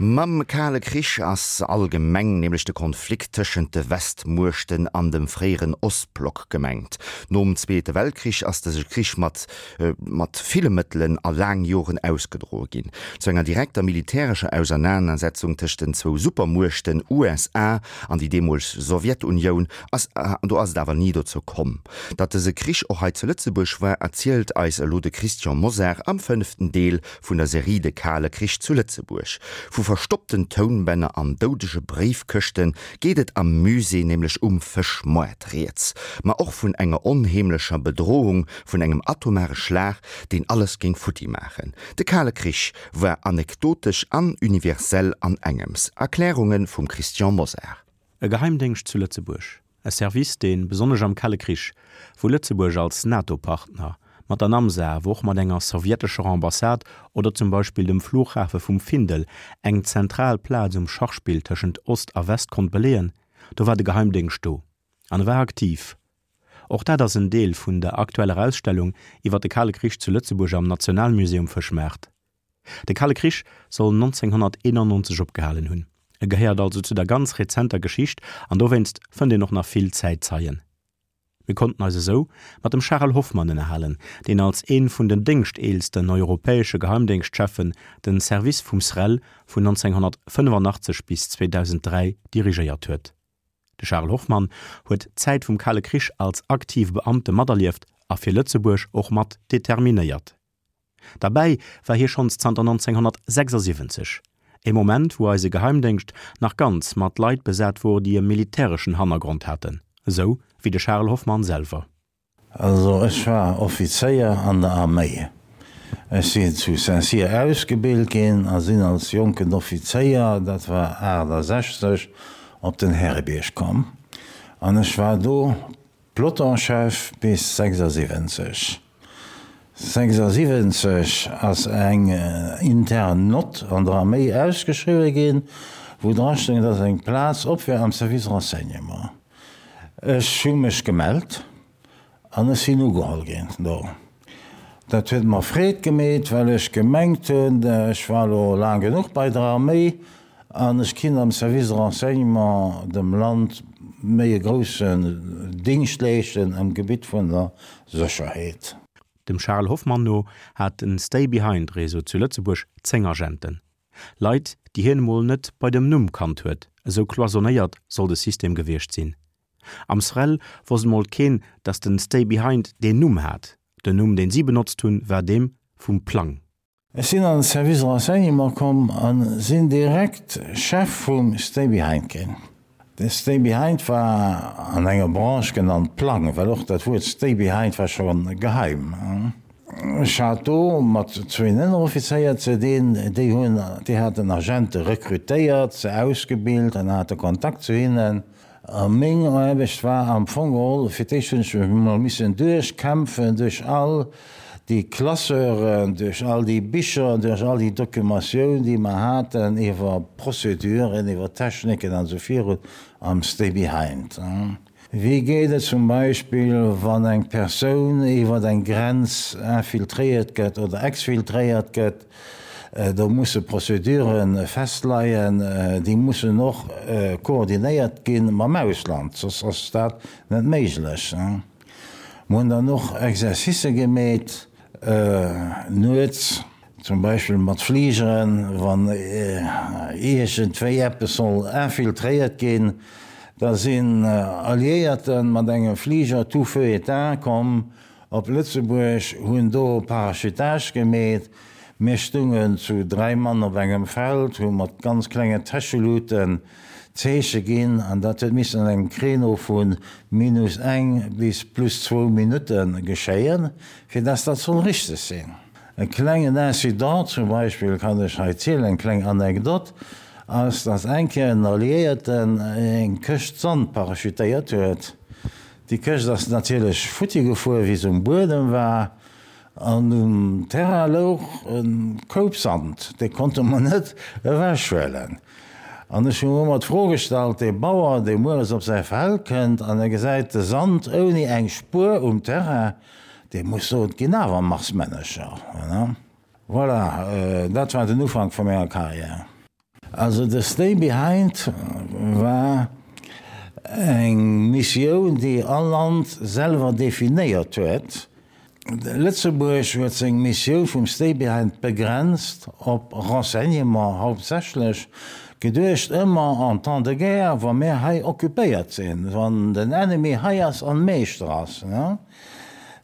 Mam Kale Krich ass allgemeng nämlech de Konflikt tëschent de Westmuechten an dem fréieren Ostblock gemengt. Nom Zweete Weltkrich ass dëse Krich mat mat ville Mëttelen a laang Joren ausgedroe ginn. Zu enger direkter militärescher Ausernanersetzung tëscht den zwou Supermuechten USA an déi deemoleg Sowjetunioun ass do ass et awer ni dozou komm. Datt dëse Krich och hei zu Lëtzebuerg war, erzielt eis elo de Christian Mosar am fënneften Deel vun der Serie De kale Krich zu Lëtzebuerg. Vu verstoppten Tounbänner an doudege Bréifkëschte geet et am Musée nämlech um Fëschmoart rieds, ma och vun enger onheemlecher Bedrohung vun engem atomare Schlag, deen alles géing futti maachen. De kale Krich war anekdotesch an universell an engems. Erklärunge vum Christian Mosar. E Geheimdéngscht zu Lëtzebuerg, e Service, dee besonnesch am Kale Krich, wou Lëtzebuerg als NATO-Partner, mat der Namsa, awer och mat enger sowjetescher Ambassade oder zum Beispill dem Flughafe vum Findel eng zentral Plaz um Schachspill tëschent Ost a West konnt beleeën, do war de Geheimdéngscht do an e war aktiv. Och dat ass en Deel vun der aktueller Ausstellung iwwer de Kale Krich zu Lëtzebuerg am Nationalmuseum Fëschmaart. De Kale Krich soll 1991 opgehalen hunn. E gehéiert also zu der ganz rezenter Geschicht an dowéinst fënnt een och nach vill Zäitzeien. Mir konnten eis esou mat dem Charel Hoffmann ënnerhalen, deen als ee vun den déngschteelsten europäesche Geheimdéngschtcheffen den Service vum SREL vun 1985 bis 2003 dirigéiert huet. De Charel Hoffmann huet d'Zäit vum Kale Krich als aktive Beamte materlieft a fir Lëtzebuerg och mat determinéiert. Derbäi war hie schonns zanter 1976, e Moment wou eise Geheimdéngscht nach ganz mat Leit besat wor déi e militäreschen Hannergrond haten, esou wéi de Charel Hoffmann selwer. Also ech war Offizéier an der Arméi. Ech sinn zu Saint-Cyr ausgebilt ginn a sinn als jonken Offizéier, dat war 68, op den Härebierg komm an ech war do Pelotonchef bis 76. 76 ass eng intern Nott an der Arméi ausgeschriwwe ginn, wou dra stoung, dass eng Plaz op wär am Service Renseignement. Ech hu mech gemellt an ech sinn ugeholl ginn do. Dat huet mer Freed gemeet, well ech gemengt hunn, ech war elo laang genuch bei der Arméi an ech kinn am Service de Renseignement dem Land méi e groussen Dingscht leeschten am Gebitt vun der Sécherheet. Dem Charel Hoffmann no hat den Stay-Behind-Réseau zu Lëtzebuerg 10 Agenten. Leit, déi hien emol net bei dem Numm kannt huet, esou cloisonnéiert soll de System gewiescht sinn. Am SREL wosst emol keen, datt den Stay Behind deen Numm hat. Den Numm, deen si benotzt hunn, war deem vum Plang. Ech sinn an den Service Renseignement komm a sinn direkt Chef vum Stay Behind ginn. De Stay Behind war an enger Branche genannt Plang, well och dat Wuert Stay Behind war scho geheim. Ech hat do mat zwéin Ënneroffizéier ze dinn, déi hunn, déi haten Agente rekrutéiert, se ausgebilt an hate Kontakt zu hinnen. A meng Aarbecht war am Fong geholl, fir d'éischt hunn ech mech emol missen duerchkämpfen duerch all déi Classeuren, duerch all déi Bicher, duerch all déi Documentioun, déi mer haten iwwer Prozeduren, iwwer Techniken an esou virun am Stay Behind. Wéi geet et zum Beispill, wann eng Persoun iwwer eng Grenz infiltréiert gëtt oder exfiltréiert gëtt? Do musse Procédure festleien, déi mussen och koordinéiert gi mam Ausland, soss ass dat net méiglech. Mer hunn dann och Exercicë gemeet nuets. Zum Beispill mat Fligeren, wann iergendwéi eppes soll infiltréiert ginn, da sinn Alliéierte mat engem Fliger tout feu éteint komm op Lëtzebuerg, hunn do Parachutage gemeet. Mir stungen zu 3 Mann op engem Feld, hu mat ganz klengen Täscheluten Zeeche ginn an dat huet missen an engem Créneau vu minus eng bis plus zwou Minutte geschéien, fir dass dat soll richteg sinn. E klengen Incident zum Beispill kann ech hei zielen, eng kleng Anekdot, ass, dass eng Kéier en Alliéierten eng Këscht Sand parachutéiert huet. Déi Këscht ass natierlech futti gefuer, wéi se um Buedem war, an um Terrain louch e Koup Sand, dee konnte mer net ewechhuelen. An ech hu mer ëmmer d'Fro gestallt, dee Bauer, dee mueres op säi Feld kënnt an e gesäit de Sand ouni eng Spuer um Terrain, Dee muss soen, et ginn awer Marsmännercher. Voilà, dat war den Ufank vu menger Karriär. Also de Stay Behind war eng Missioun, déi all Land selwer definéiert huet. Lëtzebuerg huet seng Missioun vum Stay Behind begrenzt op Renseignement hauptsächlech, geduecht ëmmer en temps de guerre, wa mir hei occupéiert sinn, wann den Ennemi hei ass an Meeschter ass,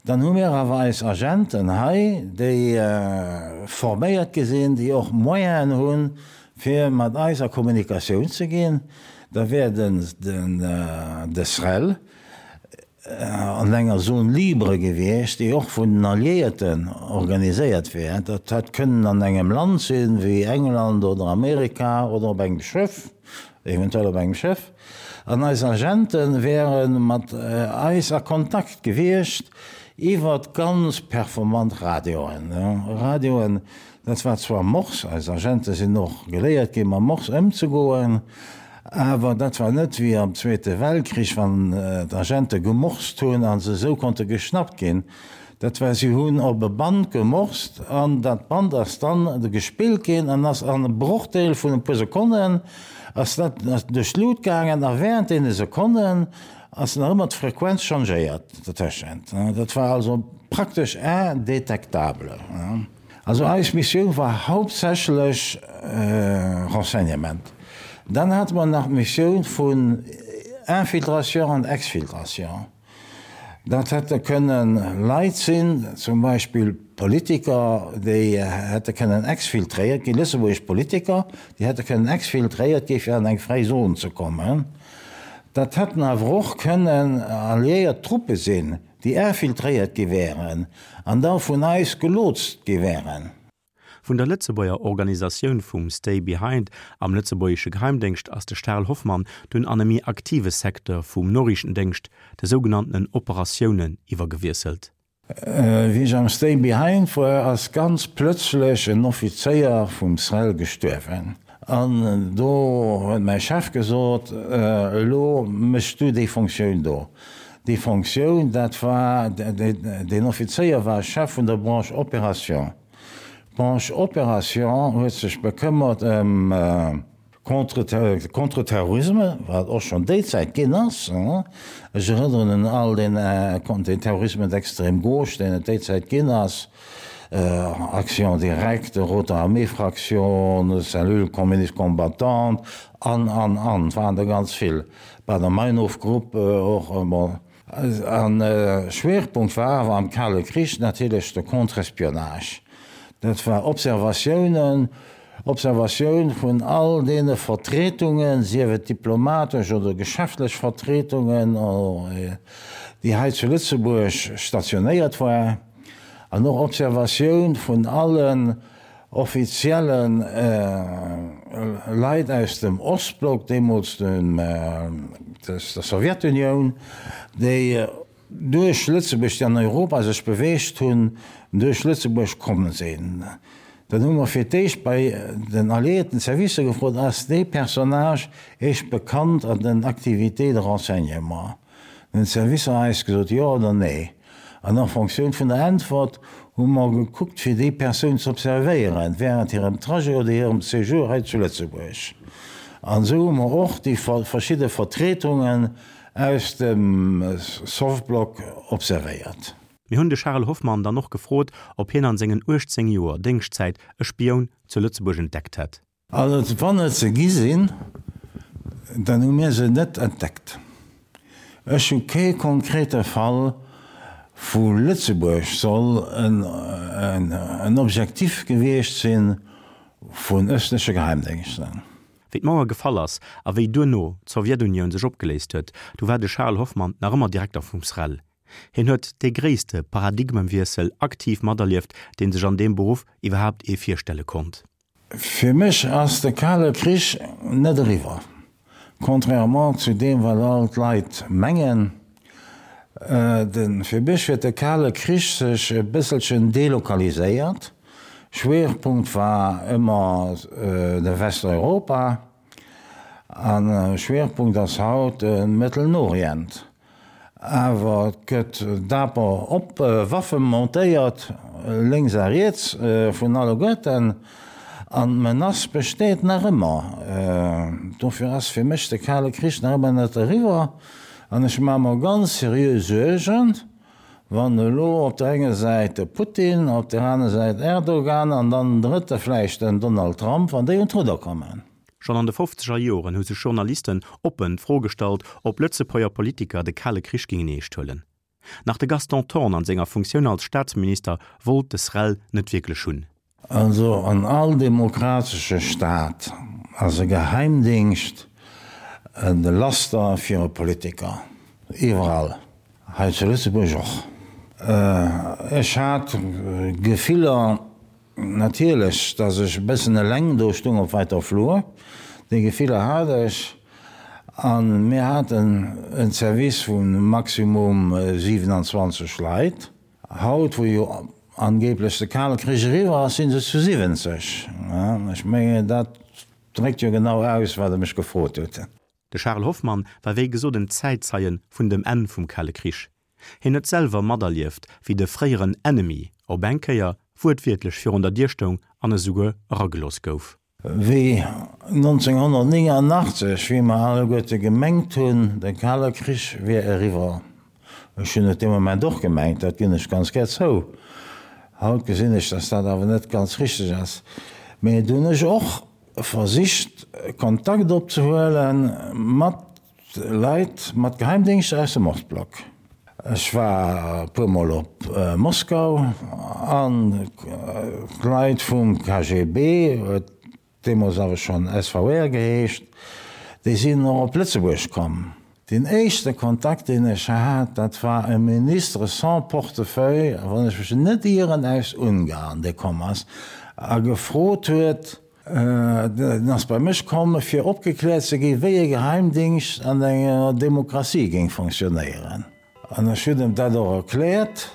dann hu mir awer eis Agenten hei, déi forméiert gi sinn, déi och Moyenen hunn, fir mat eis a Kommunikatioun ze ginn. Da wär den de SREL an enger Zone libre gewiescht, déi och vun den Alliéierten organiséiert wär. Dat hätt kënnen an engem Land sinn, wéi England oder Amerika oder op engem Schëff, eventuell op engem Schëff. An eis Agente wäre mat eis a Kontakt gewiescht iwwer ganz performant Radioen. Radioen, dat war zwar Morse, eis Agente sinn och geléiert ginn, mam Morse ëmzegoen, Awer dat war net wéi am Zweete Weltkrich, wann d'Agente gemorst hunn a se esou konnte geschnappt ginn. Dat war, si hunn op e Band gemorst an dat Band ass dann gespillt ginn an ass an e Brochdeel vun e puer Sekonnen ass dat duerch d'Lut gaangen a während deene Sekonnen ass nach ëmmer d'Frequenz changéiert dertëschent. Dat war also praktesch indétectable. Also eis Missioun war hauptsächlech Renseignement. Dann hate mer nach d'Missioun vun Infiltration an Exfiltration. Dat hätte kënnen Leit sinn, zum Beispill Politiker, déi hätte kënnen exfiltréiert ginn, lëtzebuergesch Politiker, déi hätte kënnen exfiltréiert gi fir an eng fräi Zon ze kommen. Dat hätten awer och kënnen alliéiert Truppe sinn, déi infiltréiert gi wären an da vun eis gelotst gi wären. Vun der Lëtzebuerger Organisatioun vum Stay Behind am lëtzebuergesche Geheimdéngscht ass de Charel Hoffmann dunn an e méi aktive Secteur vum Noriichtendéngscht, de sougenanntenen Operatiounen, iwwergewiesselt. Wéi ech am Stay Behind war, ass ganz plëtzlech en Offizéier vum SREL gestuerwen. An do huet mäi Chef gesot, Elo méchs du déi Fonctioun do. Déi Fonctioun, dat war, deen Offizéier war Chef vun der Branche Opération. D'Branche Opération huet sech bekëmmert ëm Contre-terrorisme, wat och schonn déi Zäit ginn ass. Ech erënneren un all deen Terrorisme d'extrême gauche, deen et déi Zäit ginn ass, Action directe, Rote Armee Fraction, Cellule communiste combattante an, an, an, et waren der ganz vill. Baader-Meinhof-Grupp och, bon. An Schwerpunkt war awer am Kale Krich natierlech de Contre-espionnage. Dat war Observatiounen, Observatioun vun all deene Vertretungen, sief et diplomatesch oder geschäftlech Vertretungen, déi hei zu Lëtzebuerg stationéiert war, an och Observatioun vun allen offizielle Leit aus dem Ostblock, deemools der Sowjetunioun, déi duerch Lëtzebuerg, déi an Europa sech beweegt hunn, duerch Lëtzebuerg komm sinn. Dann hu mer fir d'éischt bei den alliéierten Servicer gefrot, Ass dee Personnage Iech bekannt an den Activités de renseignement? Dann hunn d'Servicer eis gesot, jo oder nee. An en Fonctioun vun der Äntwert hu mer gekuckt, fir déi Persoun ze observéieren während hirem Trajet oder hirem Séjour hei zu Lëtzebuerg. An esou hu mer och déi verschidde Vertretungen aus dem Sovblock observéiert. Mir hunn de Charel Hoffmann dann och gefrot, ob hien an sengen 18 Joer Déngschtzäit e Spioun zu Lëtzebuerg entdeckt hätt. Also wann et se gi sinn, dann hu mir se net entdeckt. Ech hu kee konkrete Fall, wou Lëtzebuerg soll en Objektif gewiescht si vun ëstleche Geheimdéngschten. Wéi d'Mauer gefall ass a wéi duerno d'Sowjetunioun sech opgeléist huet, du war de Charel Hoffmann nach ëmmer Direkter vum SREL. Hien huet dee gréisste Paradigmewiessel aktiv materlieft, dee sech an deem Beruff iwwerhaapt ee virstelle konnt. Fir mech ass de Kale Krich net eriwwer, contrairement zu deem wat all d'Leit mengen. Fir mech huet de Kale Krich sech e bësselchen delokaliséiert. Schwierpunkt war ëmmer de Westeuropa a Schwierpunkt ass haut de Mëttelen Orient. Awer et gëtt daper op Waffe montéiert, lénks a riets vun alleguerten, an d'Menace besteet nach ëmmer. Dofir ass fir mech de Kale Krich nach ëmmer net eriwwer an ech maache mer ganz seriö Suergen, wann elo op der enger Säit de Putin, op der aner Säit Erdogan an dann den drëtte vläicht den Donald Trump, wann déi un d'Rudder kommen. Schonn an de fofzeger Joren hu sech Journalisten oppen d'Fro gestallt, ob Lëtzebuerger Politiker de Kale Krich gingen eescht huelen. Nach de Gaston Thorn an senger Funktioun als Staatsminister wollt des Rell net wierklech hunn. Also an all demokratesche Staat ass e Geheimdingscht e Laster fir e Politiker. Iwwerall. Hei zu Lëtzebuerg och. Ech hat Gefiller natierlech, datt ech e bëssen eleng do stung op wäiter Flur. Déi Gefiller hat ech. A mir haten en Service vu maximum 27 Leit. Haut, wou jo angeblech de Kale Krich eriwwer ass, si se zu 70. Ech mengen, dat dréckt jo genau aus, wat Der mech gefrot hutt. De Charel Hoffmann war wéi gesot en Zäitzeie vun dem Enn vum Kale Krich. Hien huet selwer materlieft, wéi de fréieren Ennemi op eng Kéier wuertwiertlech virun der Dier stoung an esouguer eragelooss gouf. Wéi 1989, wéi mer alleguerte gemengt hunn, de Kale Krich wier eriwwer, ech hunn et dee Moment och gemengt, dat ginn ech ganz gär zou, haut gesinn ech, datt dat awer net ganz richteg ass, mä du hunn ech och versicht Kontakt opzehuele mat Leit mat Geheimdéngschter aus dem Ostblock. Ech war e puer Mol op Moskau an d'Leit vum KGB, huet deemools awer schonn SVR geheescht, déi sinn och op Lëtzebuerg komm. Deen éischte Kontakt, deen ech hat, dat war e Ministre sans portefeuille, wann ech mech net ieren, aus Ungarn, dee komm ass a gefrot huet, En ass bei mech komm, fir opgekläert ze ginn, wéi e Geheimdingscht an enger Demokratie géing fonctionnéieren. An ech hunn em dat och erkläert,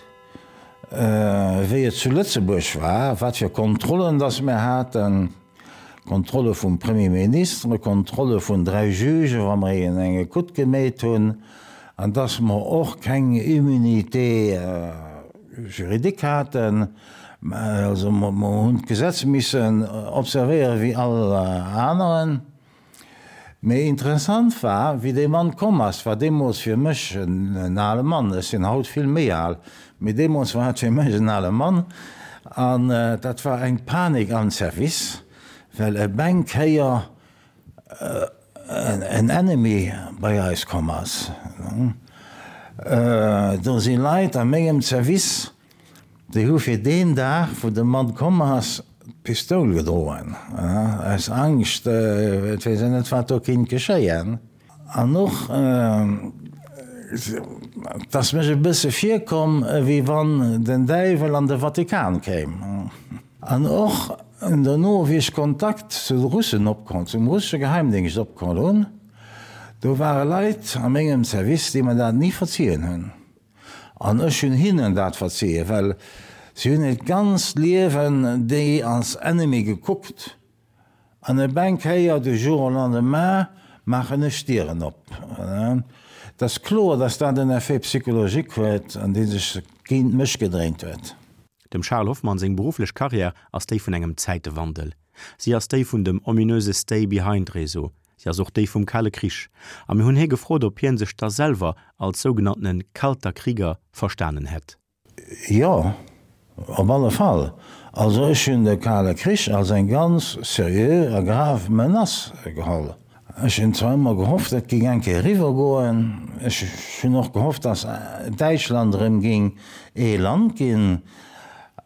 wéi et zu Lëtzebuerg war, wat fir Kontrollen dass mir haten, Kontrolle vum Premier Ministre, Kontrolle vun 3 Jugen, wa mer een eng Ecoute gemeet hunn, an dass mer och keng Immunité juridique haten. Also mer hunn d'Gesetz missen observéieren wéi all aneren. Mee interessant war, wéi dee Mann komm ass, war deemools fir mech en ale Mann, ech sinn haut vill méi al, mee deemools war et fir mech en ale Mann, an dat war eng Panik am Service, well op eng Kéier en Ennemi bei eis komm ass. Do si Leit a mengem Service, Déi hu fir deen Dag, wou de Mann komm ass, d'Pistoul gedroen, aus Angscht, et weess een net, wat do kinnt geschéien. An och, et ass mech e bësse virkomm, ewéi wann den Däiwel an de Vatikan kéim. An och dono, wéi ech Kontakt zu de Russen opkomm, zum russesche Geheimdéngscht opkomm hunn, do ware Leit a mengem Service, déi mer dat ni verzien hunn. An ech hunn hinnen dat verzien, well si hunn hiert ganzt Liewen déi als Ennemi gekuckt, an op eng Kéier, du jour au lendemain, maachen ech d'Dieren op. Et ass kloer, datt dat en Effet psychologique huet, an dee sech géint mech gedréint huet. Dem Charles Hoffmann seng berufflech Karriär ass déi vun engem Zäitewandel. Si ass déi vun dem ominöse Stay-behind-Réseau, Si ass och déi vum Kale Krich. A mir hunn hie gefrot, ob hien sech da selwer als sougenanntene Kalter Krieger verstanen hätt. Jo, op alle Fall. Also ech hunn de Kale Krich als eng ganz seriö a grav Menace geholl. Ech hunn zwar ëmmer gehofft, et géing eng Kéier eriwwer goen. Ech hunn och gehofft, datt Däitschland erëm géing ee Land ginn.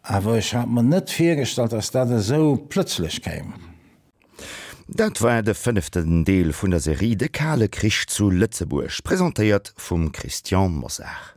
Awer ech hat mer net virgestallt, datt dat esou plëtzlech kéim. Dat war de fënneften Deel vun der Serie De kale Krich zu Lëtzebuerg, presentéiert vum Christian Mosar.